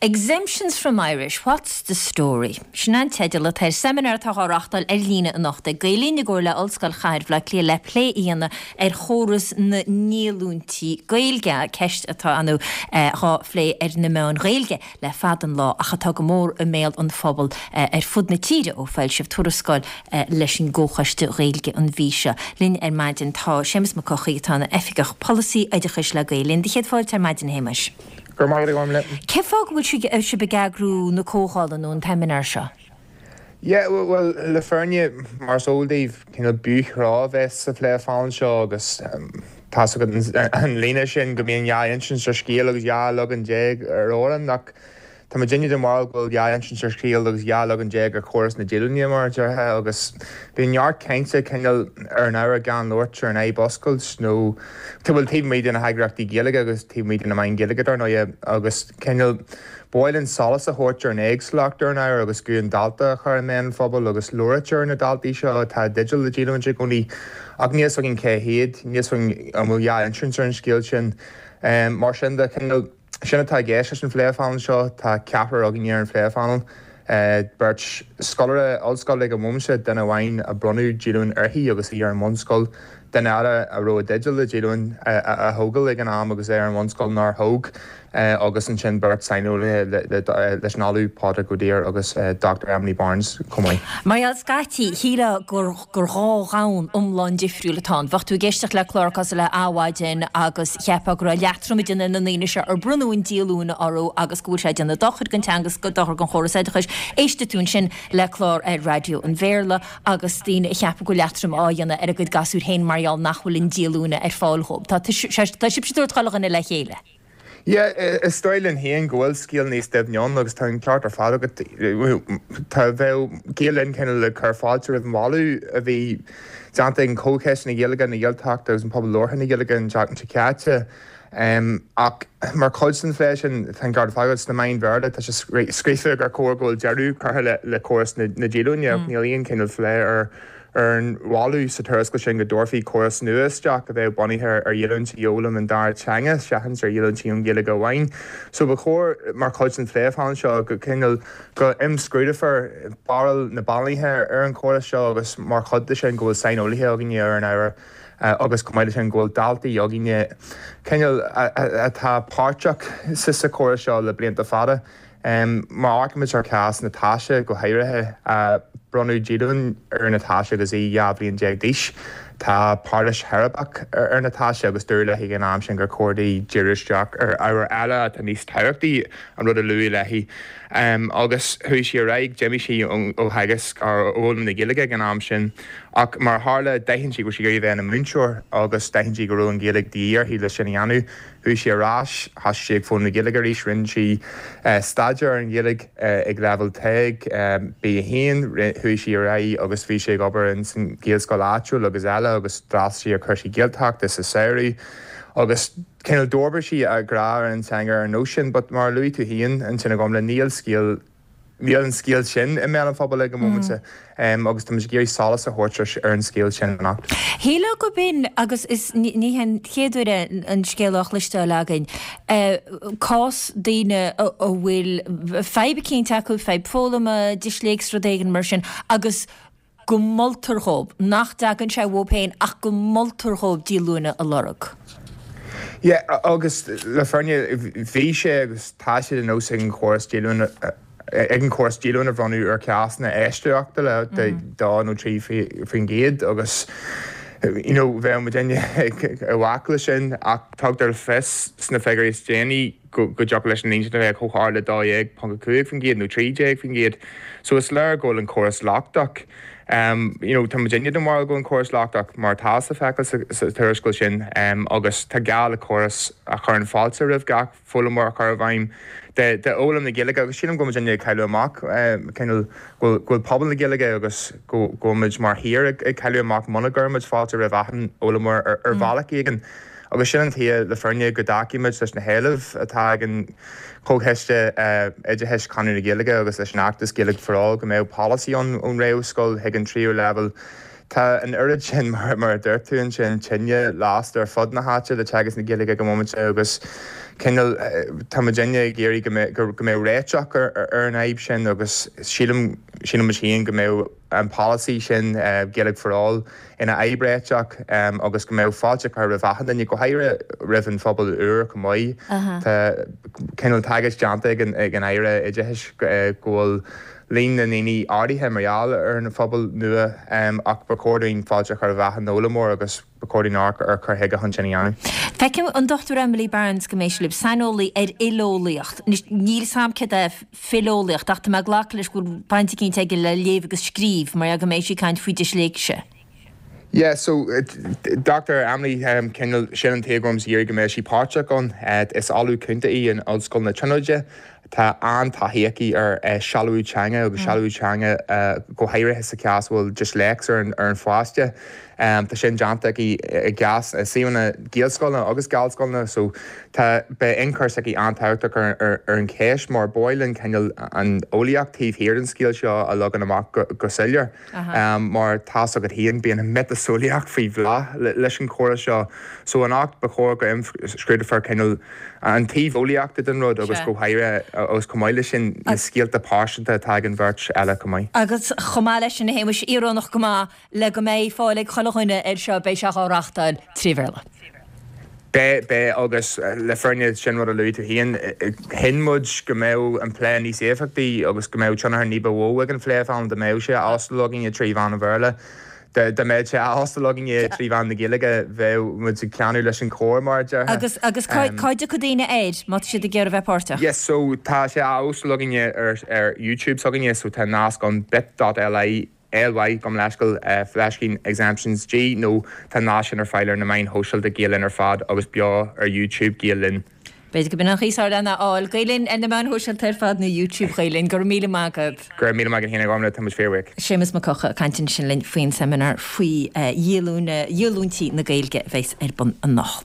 Exemptions from Irish, What's the Story? Sin an teideal atá ar seimineár atá á reáchtáil ar líne anocht ag Gael Linn i gcomhar le Ollscoil Chathair Bhaile Átha Cliath le plé a dhéanamh ar chóras na ndíolúintí Gaeilge, ceist atá ar ndóigh dhá phlé ar na meáin Ghaeilge le fada an lá ach atá go mór i mbéal an phobail ar fud na tíre ó foilsíodh tuarascáil leis an gComhchoiste Gaeilge an mhí seo. Linn ar maidin tá Séamus Mac Eochaidh atá ina Oifigeach Polasaí Oideachais le Gael Linn. Do chéad fáilte ar maidin a Shéamais. Go raibh maith agat, a Ghormfhlaith. Cén fáth go bhfuil sibh ag eagrú na comhdhála nó an tseimineáir seo? Yeah, bhuel, le fírinne, mar is eol daoibh, cineál biothrá a bheas sa phléphainéal seo agus tá's agat an líne sin go mbíonn dhá insint ar scéal agus 12 leagan ar amhrán ach Tá muidinne den bharúil go bhfuil dhá insint ar scéal agus 12 leagan ar chóras na díolúine, mar a déarfá, agus bíonn neart cainte cineál ar an ábhar gan labhairt ar an fhadhb a oscailt nó, bhuel, taobh amuigh de na heagraíochtaí Gaeilge agus taobh amuigh de na meáin Ghaeilge, dar ndóighe, agus cineál ba mhaith linn solas a thabhairt ar an éagsúlacht ar an ábhar agus guth an dalta a chur i mbéal an phobail agus labhairt ar na daltaí seo atá i dteideal le díolúinte i gcónaí ach níl 'fhios againn cé hiad, níl 'fhios againn an bhfuil dhá insint ar an scéal sin. Mar sin de, cineál. Sin atá i gceist leis an phléphainéal seo. Tá ceathrar againne ar an phléphainéal, beirt scoláire ollscoile ag an bhomaite, duine amháin a bronnadh díolúine uirthi agus í ar an bhunscoil, duine eile a raibh i dteideal le díolúine a thógáil ag an am agus é ar an bhunscoil nár thóg, agus ansin beirt saineolaithe leis an Ollamh Pádraig Ó Duibhir agus Dr Emily Barnes chomh maith. Mar gheall scaití, shílfeá gur gur dhá dhomhan iomlán difriúil atá ann. Bheadh tú ag éisteacht le clár cosúil le Adhmhaidin agus cheapfá go raibh leatrom ag déanamh ar na daoine seo ar bronnadh an díolúine orthu agus go bhfuil sé ag déanamh dochair don teanga agus dochar don chóras oideachais. Éistfidh tú ansin le clár ar raidió an Bhéarla agus daoine ag ceapadh go bhfuil leatrom á dhéanamh ar a gcuid gasúir féin mar gheall nach bhfuil an díolúine ar fáil dhóibh. Tá tá sibhse ag tabhairt chuile dhuine le chéile. Yeah, is dóigh linn féin go bhfuil scéal níos doimhne ann agus tá an ceart ar fad agat. Tá, bheadh Gael Linn cineál ag cur fáilte roimh an mholadh a bhí déanta ag an Chomhchoiste na Gaeilge, na Gaeltachta agus an Pobal Labhartha na Gaeilge an tseachtain seo caite. Ach mar chuid den phlé sin, tá an ceart ar fad agat, sna meáin Bhéarla tá sé scríofa gur chóir go bhfuil deireadh curtha le córas na díolúine ach níl aon chineál phlé ar ar an mholadh sa tuarascáil sin go dtabharfaí córas nua isteach a bheadh bunaithe ar dhíolúintí ó fhoghlaim an dara teanga seachas ar dhíolúintí ón Ghaeilge amháin. So ba chóir, mar chuid den phléphainéal seo, go cineál go imscrúdófar barúil na bpainéalaithe ar an chóras seo agus mar chuid de sin go bhfuil saineolaithe againne ar an ábhar agus chomh maith leis sin go bhfuil daltaí againne cineál atá páirteach sa chóras seo le blianta fada. Má amharcaimid ar chás Natasha go háirithe, bronnadh díolúine ar Natasha agus í 12 bhliain d'aois. Tá pairilis cheirbreach ar Natasha agus dúradh léi ag an am sin gur chóir di díriú isteach ar ábhair eile atá níos tábhachtaí, an rud a luadh léi. Agus chuaigh sí ar aghaidh, d'imigh sí ó theagasc, ó fhoghlaim na Gaeilge ag an am sin. Ach mar a tharla, d'aithin sí go raibh sí ag iarraidh a bheith ina múinteoir agus d'aithin sí go raibh an Ghaeilge de dhíth uirthi le sin a dhéanamh. Chuaigh sí ar ais, thosaigh sí ag foghlaim na Gaeilge arís, rinne sí staidéar ar an Ghaeilge ag leibhéal TEG, B1, chuaigh sí ar aghaidh agus bhí sí ag obair ins an Ghaelscoil áitiúil agus eile agus d'fhreastail sí ar chúrsaí Gaeltachta sa samhradh agus cineál d'fhorbair sí a grá ar an teanga ar an nós sin but mar a luaigh tú féin ansin a Ghormfhlaith, níl scéal Níl an scéal sin i mbéal an phobail ag an móimint agus táimid ag iarraidh solas a thabhairt ar an scéal sin anocht. Shílfeá gurb in, agus is ní hé an chéad uair é an scéal á chloisteáil againn, cás daoine a bhfuil fadhb eicínt acu, fadhb foghlama, disléicse, rud éigin mar sin, agus go moltar dhóibh, nach dtagann sé uathu féin ach go moltar dhóibh díolúine a lorg. Yeah, agus le fírinne, bhí sé agus tá sé de nós ag an chóras díolúine, ag an chóras díolúine a bhronnadh ar chásanna eisceachtúla de 2 nó 3% agus you know bheadh muidinne i bhfách leis sin ach tugtar le fios sna figiúirí is déanaí go dtiocfadh leis an líon sin a bheith chomh hard le 12.5% nó 13%. So is léir go bhfuil an córas lochtach. You know, tá muidinne den bharúil go bhfuil an córas lochtach mar atá le feiceáil sa tuarascáil sin agus tá gá le córas a chuireann fáilte roimh gach foghlaimeoir a chur i bhfeidhm d'fhoghlaim na Gaeilge agus sílim go bhfuil muidinne ag cailleadh amach cineál go bhfuil pobal na Gaeilge agus go bhfuil muid mar thír ag cailleadh amach muna gcuirimid fáilte roimh achan fhoghlaimeoir ar bhealach éigin. Agus sin an tuige, le fírinne, go dtacaímid leis na héilimh atá ag an Chomhchoiste Oideachais, Conradh na Gaeilge agus leis an fheachtas Gaeilge for All go mbeadh polasaí ann ón réamhscoil chuig an tríú leibhéal. Tá an oiread sin, mar a dúirt tú ansin, tine lasta ar fud na háite le teagasc na Gaeilge ag an bhomaite agus Cineál, tá muidinne ag iarraidh go mbeadh, go mbeadh réiteach ar an fhadhb sin agus sílim, sílim muid féin go mbeadh an polasaí sin, Gaeilge for All, ina fhadhb réiteach agus go mbeadh fáilte curtha roimh achan duine, go háirithe roimh an phobal úr chomh maith. Tá cineál tagairt déanta ag an Aire Oideachais go bhfuil líon na ndaoine ardaithe mar gheall ar an phobal nua ach ba chóir dúinn fáilte a chur roimh achan fhoghlaimeoir agus ba chóir dúinn amharc ar chur chuige chun sin a dhéanamh. Feicim an Dr Emily Barnes go mbeidh sí libh, saineolaí ar fhileolaíocht. Anois, níl 's a'm céard é fileolaíocht ach tá mé ag glacadh leis go bhfuil baint eicínt aige le léamh agus scríobh mar go mbeidh sí ag caint faoi disléicse. Yeah, so Dr Emily, cineál, sin an taobh go raibh muid ag iarraidh go mbeadh sí páirteach ann. Is Ollamh Cúnta í in Ollscoil na Tríonóide. Tá an-taithí aici ar sealbhú teanga agus sealbhú teanga go háirithe sa chás a bhfuil disléicse ar an pháiste. Tá sin déanta aici i gcás i suíomhanna Gaelscoileanna agus Gallscoileanna so tá, beidh ionchur s'aici an-tábhachtach ar an cheist mar ba mhaith linn cineál an eolaíocht taobh thiar den scéal seo a leagan amach go soiléir. Mar tá's agat féin, bíonn an miotaseolaíocht faoi bhláth leis an chóras seo. So anocht ba chóir go imscrúdófar cineál an taobh eolaíochta den rud agus go háirithe agus chomh maith leis sin na scéalta pearsanta atá ag an bheirt eile chomh maith. Agus chomh maith leis sin, a Shéamais, íorónach go maith, le go mbeidh fáil ag chuile dhuine air seo, beidh sé á reachtáil tré Bhéarla. Beidh, beidh, agus le fírinne, sin rud a luaigh tú féin, chinn muid go mbeadh an plé níos éifeachtaí agus go mbeadh tionchar ní ba mhó ag an phlé dá mbeadh sé á óstáil againne trí mheán an Bhéarla. Dá mbeadh sé á óstáil againne trí mheán na Gaeilge, bheadh muid ag teannadh leis an chór, mar a déarfá. Agus, agus cá, cá dtiocfaidh daoine air, má tá siad ag iarraidh bheith páirteach? Yes, so tá sé á óstáil againne ar, ar YouTube s'againne, so tá nasc ann bit.ly LY, gabh mo leithscéal, fleiscín exemptions G nó tá an nasc sin ar fáil ar na meáin shóisialta Gael Linn ar fad agus beo ar YouTube Gael Linn. B'fhéidir go b'in an chaoi is fearr lena fháil. Gael Linn ar na meáin shóisialta ar fad nó YouTube Ghael Linn. Go raibh míle maith agat. Go raibh míle maith agat féin a Ghormfhlaith, tá muid fíorbhuíoch. Séamus Mac Eocha ag caint ansin linn faoin seimineár faoi dhíolúintí na Gaeilge a bheas ar bun anocht.